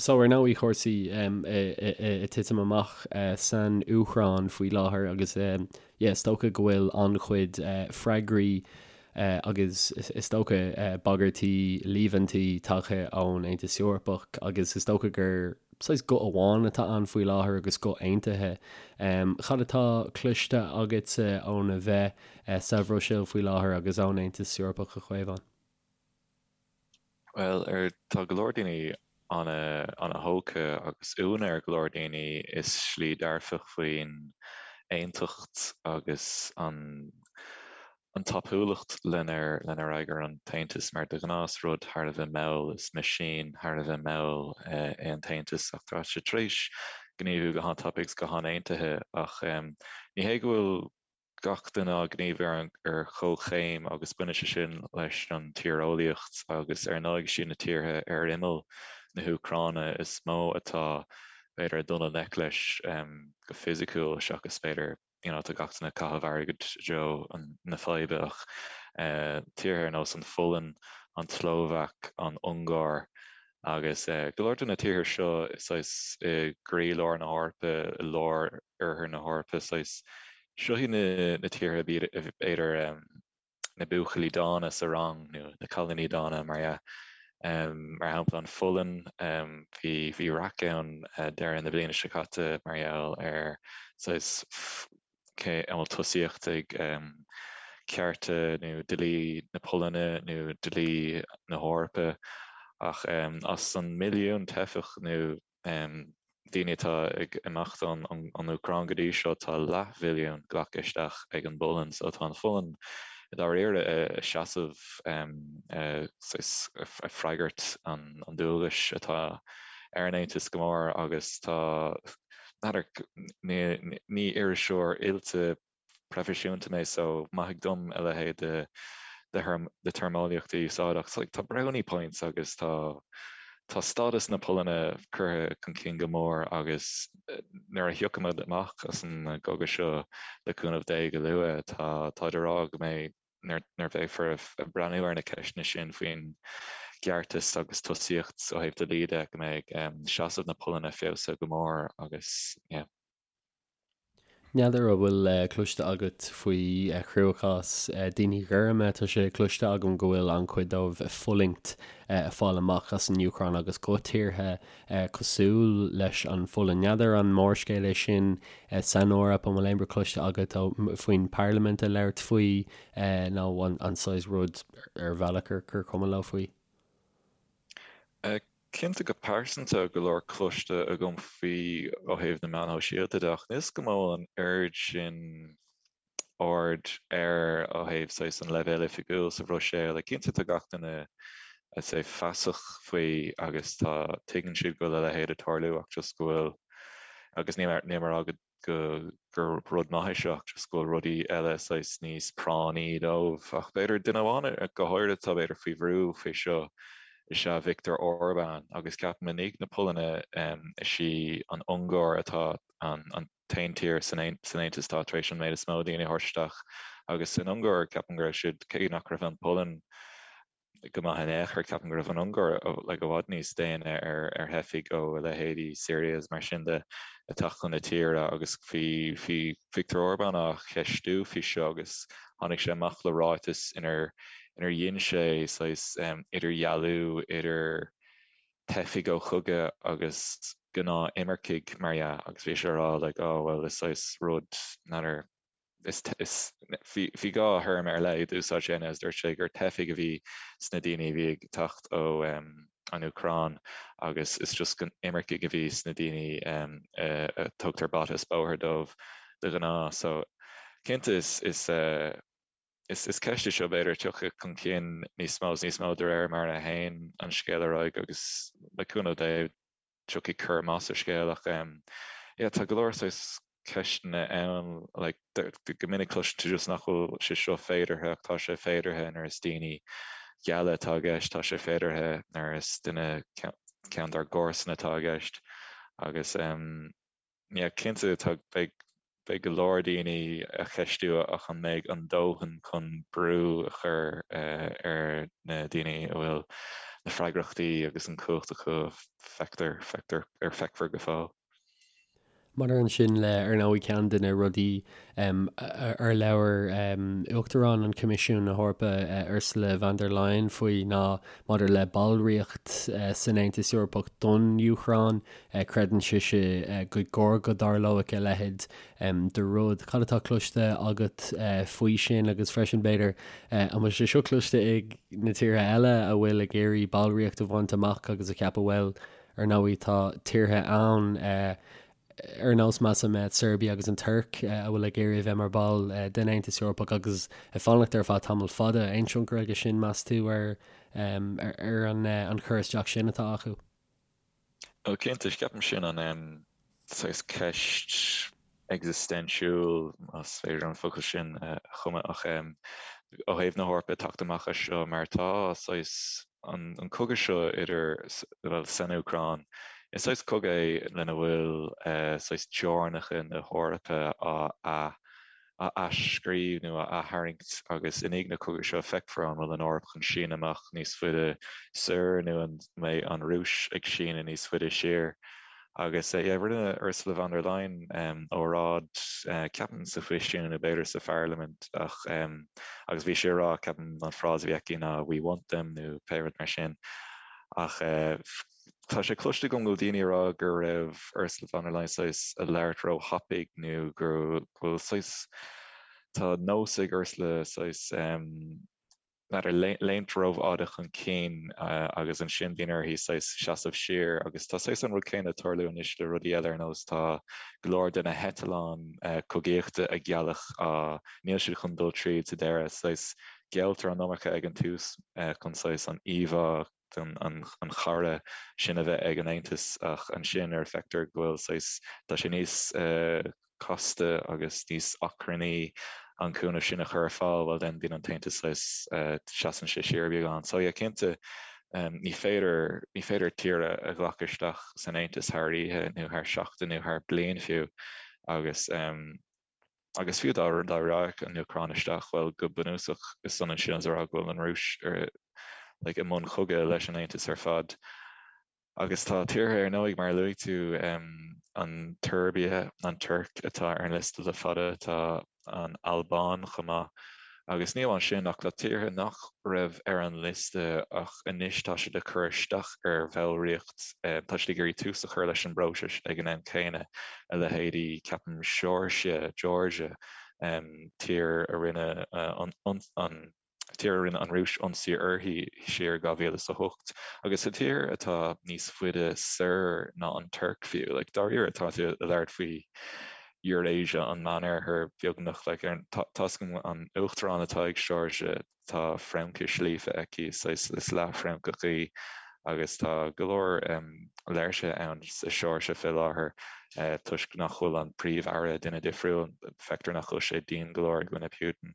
So ar ndóigh cúrsaí ag titim amach san Úcráin faoi láthair agus yeah is dócha go bhfuil an-chuid freagraí agus is dócha bagairtí, líomhaintí tagtha ón Aontas Eorpach agus is dócha gur saghas guth amháin atá ann faoi láthair agus guth aontaithe. Cad atá cloiste agatsa óna bheith sa Bhruiséil faoi láthair agus ón Aontas Eorpach a Chaomháin? Bhuel, ar, tá go leor daoine ana-thógtha agus ionadh ar go leor daoine i slí dearfach faoin aontacht agus an an tapúlacht lenar lenar fhreagair an tAontas mar de ghnáth is rud thar a bheith mall, is meaisín thar a bheith mall é an tAontas ach tá sé tar éis gníomhú go han-tapaidh agus go han-aontaithe ach ní hé go bhfuil gach duine ag gníomhú ar chomhchéim agus baineann sé sin leis an tíreolaíocht agus ar ndóigh is iad na tíortha ar imeall na hÚcráine is mó atá b'fhéidir ag dul i ngleic leis go fisiciúil seachas b'fhéidir you know tá gach duine ag caitheamh airgid i dtreo na faidhbe ach tíortha ar nós an Pholainn, an tSlóvaic, an Ungáir agus go leor de na tíortha seo saghas i gcroílár na hEorpa, i lár oirthear na hEorpa, saghas seo iad na tíortha b'fhéidir na buachaillí dána sa rang nó na cailíní dána mar dhea. Mar shampla an Pholainn, bhí bhí raic ann deireadh na bliana seo caite mar gheall ar saghas cé an bhfuil tosaíocht ag cearta nó dlí na Polainne nó dlí na hEorpa ach as an milliún teifeach nó daoine atá ag imeacht ón Úcráin go dtí seo, tá leathmhilliún glactha isteach ag an bPolainn. So tá an Pholainn i dáiríre ag seasamh ag freagairt an dualgais atá ar an Aontas go mór agus tá, n'fheadar, ní iriseoir oilte proifisiúnta mé so maithigí dom a leithéid de de téarmeolaíocht a úsáid ach like tá brownie points agus tá tá stádas na Polainne curtha chun cinn go mór agus nuair a thiocfaimid amach as an gcogadh seo le cúnamh Dé go luath tá táid ag rá go mbeidh nuair nuair bheifear ag breathnú ar na ceisteanna sin faoin gceartas agus tosaíocht ó thaobh dlí de go mbeidh seasamh na Polainne feabhsaithe go mór agus yeah. N'fheadar an bhfuil cloiste agat faoi chruachás daoine gorma. Tá sé cloiste agam go bhfuil an-chuid dóibh ag fulaingt ag fáil amach as an Úcráin agus go tíortha cosúil leis an Pholainn. N'fheadar an mórscéal é sin san Eoraip, an bhfuil aon rud cloiste agat faoin bparlaimint ag labhairt faoi nó an saghas rud ar bhealach gur cuma leo faoi? Cinnte go pearsanta go leor cloiste agam faoi ó thaobh na meáin shóisialta de ach níl 's agam an bhfuil an oiread sin aird air ó thaobh saghas an leibhéal oifigiúil sa Bhruiséil. Like cinnte tá gach duine I'd say feasach faoi agus tá tuigeann siad go bhfuil a leithéid ag tarlú ach just go bhfuil agus níl mé ag rá go go gur rud maith é seo ach just go bhfuil rudaí eile saghas níos práinní dóibh. Ach b'fhéidir duine amháin go háirithe atá b'fhéidir faoi bhrú faoi seo is ea Viktor Orbán agus ceapaim i ndiaidh na Polainne is í an Ungáir atá an an t-aon tír san san Aontas atá tar éis an méid is mó daoine a thabhairt isteach agus san Ungáir ceapaim go raibh siad cé nach raibh an Pholainn go maith in aon chor. Ceapaim go raibh an Ungáir like i bhfad níos déine ar ar theifigh ó a leithéidí Syria is mar sin de ag teacht chun na tíre agus bhí bhí Viktor Orbán á cheistiú faoi seo agus tháinig sé amach le ráiteas inar inar dhein sé saghas idirdhealú idir teifigh ó chogadh agus gnáth imircigh mar dhea agus bhí sé ag rá like oh well is saghas rud n'fheadar is bhí dhá théarma ar leith a d'úsáid sé is dúirt sé gur teifigh a bhí sna daoine a bhí ag teacht ó an Úcráin agus is just imircigh a bhí sna daoine a tugtar bata is bóthar dóibh de ghnáth. So cinnte is is is is ceist é seo b'fhéidir a thiocfaidh chun cinn níos mó is níos mó de réir mar a théann an scéal ar aghaidh agus le cúnamh Dé tiocfaidh cur amach ar scéal ach yeah tá go leor saghas ceisteanna ann like go minic cloiseann tú just nach bhfuil sé seo féideartha ach tá sé féideartha nuair is daoine geala atá i gceist, tá sé féideartha nuair is duine ceann dár gcomharsana atá i gceist agus yeah cinnte tá beidh. Beidh go leor daoine ag ceistiú ach an mbeidh an dóthain chun brú a chur ar na daoine a bhfuil na freagrachtaí agus an chumhacht acu, feictear, feictear, ar feicfear go fóill. Maidir ansin le, ar ndóigh, ceann de na rudaí ar labhair Uachtarán an Choimisiúin na hEorpa, Ursula von der Leyen faoi ná maidir le ballraíocht san Aontas Eorpach don Úcráin. Creideann sise gur chóir go dtarlódh a leithéid de rud. Cad atá cloiste agat faoi sin agus freisin, b'fhéidir, an bhfuil sé seo cloiste ag na tíortha eile a bhfuil ag iarraidh ballraíocht a bhaint amach agus a cheapadh, bhuel, ar ndóigh tá tíortha ann ar nós measaim Serbia agus an Tuirc a bhfuil ag iarraidh a bheith mar ball den Aontas Eorpach agus ag fanacht ar feadh tamall fada. Aon tionchar aige sin, meas tú, ar ar an chur isteach sin atá acu? Ó cinnte, ceapaim sin an saghas ceist existentiúil, más féidir an focal sin a chumadh, ach ó thaobh na hEorpa teacht amach as seo mar tá saghas an cogadh seo idir, bhuel, san Úcráin, is saghas cogadh é lena bhfuil saghas teorainneacha na hEorpa á a athscríobh nó a aththarraingt agus i ndiaidh na cogaidh seo feicfear an bhfuil an Eoraip chun síneadh amach níos faide soir nó an mbeidh an Rúis ag síneadh níos faide siar. Agus yeah, rinne Ursula von der Leyen óráid, ceapaim sa Choimisiún nó b'fhéidir sa Pharlaimint ach agus bhí sí ag rá, ceapaim an frása a bhí aici ná 'we want them' nó pé rud mar sin ach Tá sé cloiste agam go bhfuil daoine ag rá go raibh Ursula von der Leyen saghas ag labhairt ró-thapaidh nó go bhfuil saghas, tá nós ag Ursula saghas n'fheadar, léimt rófhada chun cinn agus ansin bíonn uirthi saghas seasamh siar agus tá saghas an rud céanna ag tarlú anois le rudaí eile ar nós tá go leor de na heitleáin cogaíochta a gealladh á, níl siad chun dul tríd sa deireadh, saghas gealltar an iomarca ag an tús chun saghas an íomhá an chara sin a bheith ag an Aontas ach ansin nuair a feictear go bhfuil saghas, tá sé níos casta agus níos achrannaí an cúnamh sin a chur ar fáil, bhuel then bíonn an tAontas saghas, seasann sé siar beagán. So yeah, cinnte ní féidir, ní féidir tír a ghlacadh isteach san Aontas thar oíche nó thar seachtain nó thar bliain fiú agus Agus fiú dá raghadh an Úcráin isteach, bhuel, go bunúsach, is ionann sin is a rá go bhfuil an Rúis ar, like, i mbun chogaidh leis an Aontas ar fad. Agus tá tíortha, ar ndóigh, mar a luaigh tú, an tSeirbia, an Tuirc atá ar an liosta le fada, tá an Albáin chomh maith. Agus ní amháin sin, ach tá tíortha nach raibh ar an liosta ach anois tá siad ag cur isteach ar bhallraíocht, tá siad ag iarraidh tús a chur leis an bpróiseas ag an am céanna, a leithéidí, ceapaim, Seoirsia, Georgia, tír a rinne an tír a rinne an Rúis ionsaí uirthi siar i 2008, agus tá tír atá níos faide soir ná an Tuirc fiú, like dáiríre tá tú ag labhairt faoi Eurasia, an Meánoirthear, beagnach. Like, ar, tá, tá's agam an uachtarán atá ag Seoirsia, tá Fraincis líofa aici, saghas, is leath-Fhrancach í, agus tá go leor léirsithe ann sa Seoirsia fé láthair toisc nach bhfuil an príomh-aire duine difriúil, feictear nach bhfuil sé dian go leor i gcoinne Putin.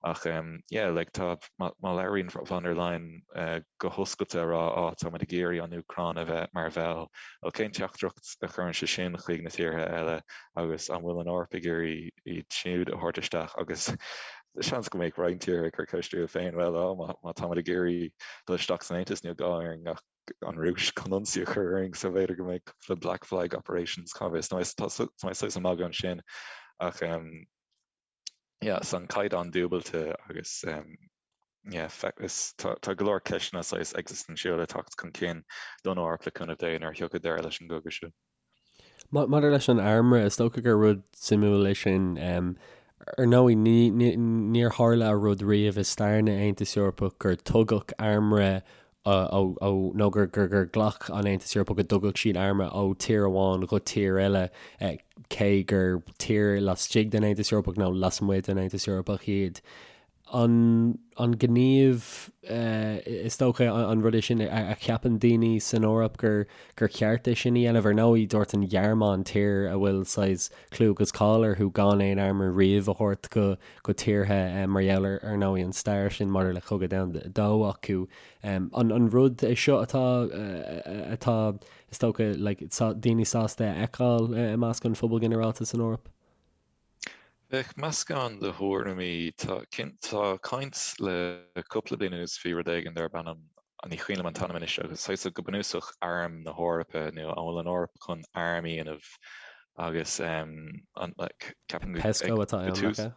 Ach yeah, like, tá, má, má labhraíonn von der Leyen go hoscailte a rá, á, tá muid ag iarraidh an Úcráin a bheith mar bhall, bhuel, cén teachtaireacht a chuireann sé sin chuig na tíortha eile agus an bhfuil an Eoraip ag iarraidh iad siúd a thabhairt isteach agus seans go mbeadh roinnt tíortha ag cur ceist orthu féin, bhuel, á, má, má táimid ag iarraidh dul isteach san Aontas, níl gá orainn ach an Rúis chun ionsaí a chur orainn, so b'fhéidir go mbeidh cúpla black flag operations, cá bhfios, nó tá, tá mé saghas ag magadh ansin ach yeah, so an caighdeán dúbailte agus yeah, is tá tá go leor ceisteanna saghas existentiúla ag teacht chun cinn don Eoraip le cúnamh Dé nuair a thiocfaidh deireadh leis an gcogadh seo. Maidir leis an armra, is dócha gur rud suimiúil é sin. Ar ndóigh, ní, ní, níor tharla rud riamh i stair na Aontas Eorpach gur tugadh armra ó, nó gur gur ghlac an Aontas Eorpach go dtugadh siad armra ó tír amháin go tír eile, cé gur tír laistigh den Aontas Eorpach nó lasmuigh den Aontas Eorpach iad. An an gníomh, is dócha, an rud é sin a cheapann daoine san Eoraip gur gur cheart é sin a dhéanamh? Ar ndóigh, dúirt an Ghearmáin, tír a bhfuil saghas clú agus cáil orthu gan aon armra riamh a thabhairt go go tíortha mar gheall ar, ar ndóigh, an stair sin maidir le Cogadh Domhanda 2 acu. An rud é seo atá, atá, is dócha, like, daoine sásta a fheiceáil i measc an phobail ghinearálta san Eoraip? Bheadh meascán de thuairimí. Tá tá caint le cúpla bliain anuas faoi rud éigin darb ainm, ní cuimhin liom an t-ainm anois, agus saghas go bunúsach Arm na hEorpa nó an bhfuil an Eoraip chun arm a dhéanamh agus an like ceapaim go PESCO atá ann, nach ea?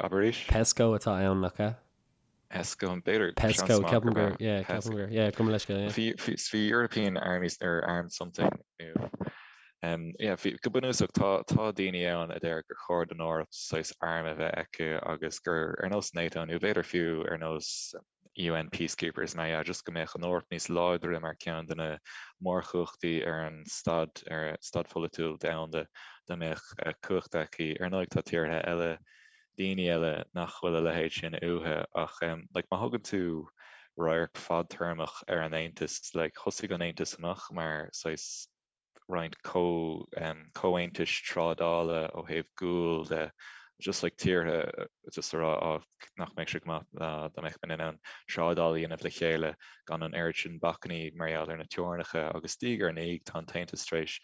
Abair arís? PESCO atá ann, nach ea? PESCO, b'fhéidir, PESCO, seans maith ceapaim gurb gur, ea. yeah, ceapaim gur, yeah, gabh mo leithscéal, yeah. Bhí, bhí, bhí European Armies or Armed something nó um, yeah, bhí, go bunúsach tá, tá daoine ann a deir gur chóir don Eoraip saghas arm a bheith aici agus gur ar nós NATO nó b'fhéidir fiú ar nós UN peacekeepers mar dhea, just go mbeadh an Eoraip níos láidre mar ceann de na mórchumhachtaí ar an staid, ar staid pholaitiúil domhanda, dá mbeadh cumhacht aici. Ar ndóigh tá tíortha eile, daoine eile nach bhfuil a leithéid sin uathu ach like má thugann tú radharc fadtéarmach ar an Aontas, like thosaigh an Aontas amach mar saghas roinnt comhaontais trádála ó thaobh guail de, just like tíortha just a rá á nach mbeadh sé go maith dá mbeadh muid in ann trádáil a dhéanamh le chéile gan an oiread sin bacainní mar gheall ar na teorainneacha agus diaidh ar ndiaidh tá an tAontas tar éis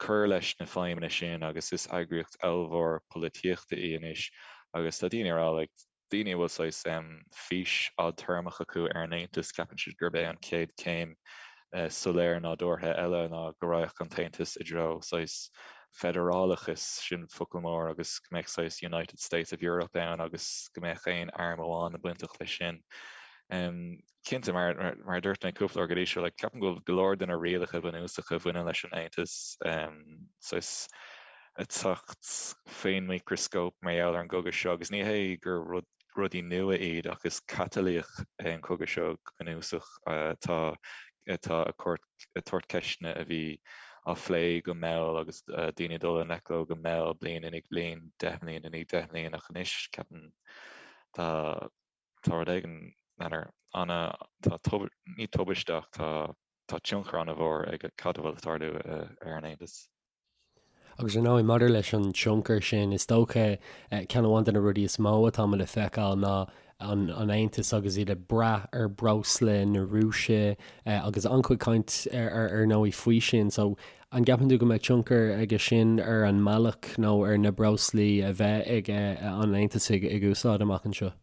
cur leis na feidhmeanna sin agus is eagraíocht ollmhór polaitíochta í anois agus tá daoine ag rá like daoine a bhfuil saghas fís fhadtéarmach acu ar an Aontas, ceapann siad gurb é an chéad chéim soiléir nádúrtha eile ná go raghadh an tAontas i dtreo saghas feidearálachais, sin focal mór, agus go mbeadh saghas United States of Europe ann agus go mbeadh aon arm amháin bainteach leis sin. Cinnte, mar a dúirt mé cúpla uair go dtí seo, like, ceapaim go bhfuil go leor de na rialacha bunúsacha a bhaineann leis an Aontas saghas ag teacht faoin micreascóp mar gheall ar an gcogadh seo agus ní hé gur rud, rudaí nua iad ach is catalaíoch é an cogadh seo go bunúsach atá atá ag cur ag tabhairt ceisteanna a bhí á phlé go mall agus daoine ag dul i ngleic leo go mall bliain i ndiaidh bliain, 10 mbliana i ndiaidh 10 mbliana ach anois ceapaim tá tá rud éigin, n'fheadar, ana, tá tub, ní tubaiste ach tá, tá tionchar ana-mhór ag cad a bhfuil ag tarlú ar an Aontas. Agus ar ndóigh, maidir leis an tionchar sin, is dócha, ceann amháin de na rudaí is mó atá muid le feiceáil ná an Aontas agus iad ag brath ar breosla na Rúise agus an-chuid caint ar ar ndóigh faoi sin. So, an gceapann tú go mbeidh tionchar aige sin ar an mbealach nó ar na breoslaí a bheidh ag an Aontas ag úsáid amach anseo?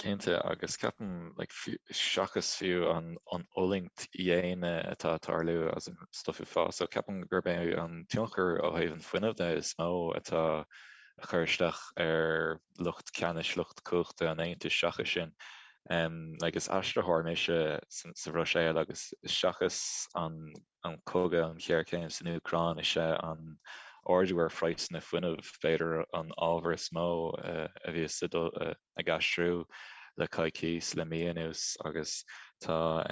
Cinnte, agus ceapaim, like, seachas fiú an an fhulaingt dhaonna atá ag tarlú as an stuif uafásach, ceapaim gurb é an tionchar ó thaobh an fuinnimh de is mó atá ag cur isteach ar lucht ceannais, lucht cumhachta an Aontais seachas sin. Like, is aistritheoir mise sa Bhruiséil agus seachas an an cogadh, an ghéarchéim san Úcráin, is é an ardú ar phraghsanna fuinnimh b'fhéidir an ábhar is mó a bhíos ag aistriú le coicís, le mí anuas agus tá,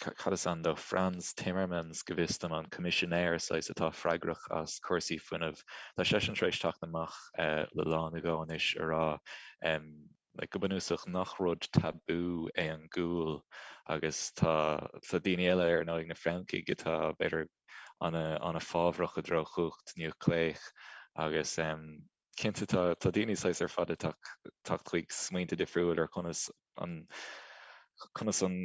cad is ainm dó, Frans Timmermans go bhfios dom, an coimisinéir saghas atá freagrach as cúrsaí fuinnimh, tá seisean tar éis teacht amach le lá nó dhó anois a rá like go bunúsach nach rud tabú é an gual agus tá tá daoine eile ar ndóigh na Francaigh atá b'fhéidir ana ana fábhrach i dtreo chumhacht núicléach agus em cinnte tá tá daoine saghas ar fad ag teacht chuig smaointe difriúil ar conas an conas an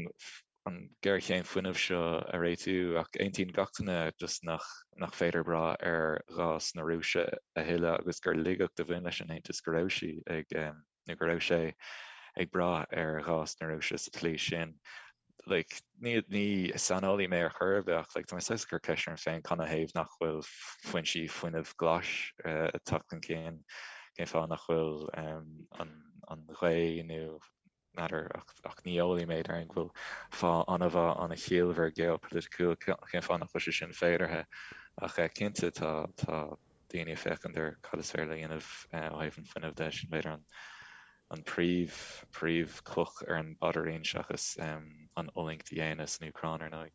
an géarchéim fuinnimh seo a réitiú ach aontaíonn gach duine just nach nach féidir brath ar ghás na Rúise a thuilleadh agus gur laigeacht a bhain leis an Aontas go raibh sí ag nó go raibh sé ag brath ar ghás na Rúise sa tslí sin. Like, ní ní saineolaí mé ar chor ar bith ach like, tá mé saghas ag cur ceist orm féin canathaobh nach bhfuil foinsí fuinnimh glais ag teacht chun cinn, cén fáth nach bhfuil an an ghaoth nó N'fheadar, ach ní eolaí mé, déarfainn go bhfuil fáth an-mhaith, an-chiallmhar geopholaiticiúil cén fáth nach bhfuil sé sin féideartha. Ach cinnte tá daoine ag féachaint ar cad is féidir le dhéanamh ó thaobh an fuinnimh de, sin b'fhéidir an príomh, príomh chloch ar an bpaidirín seachas an fhulaingt dhaonna san Úcráin ar ndóigh.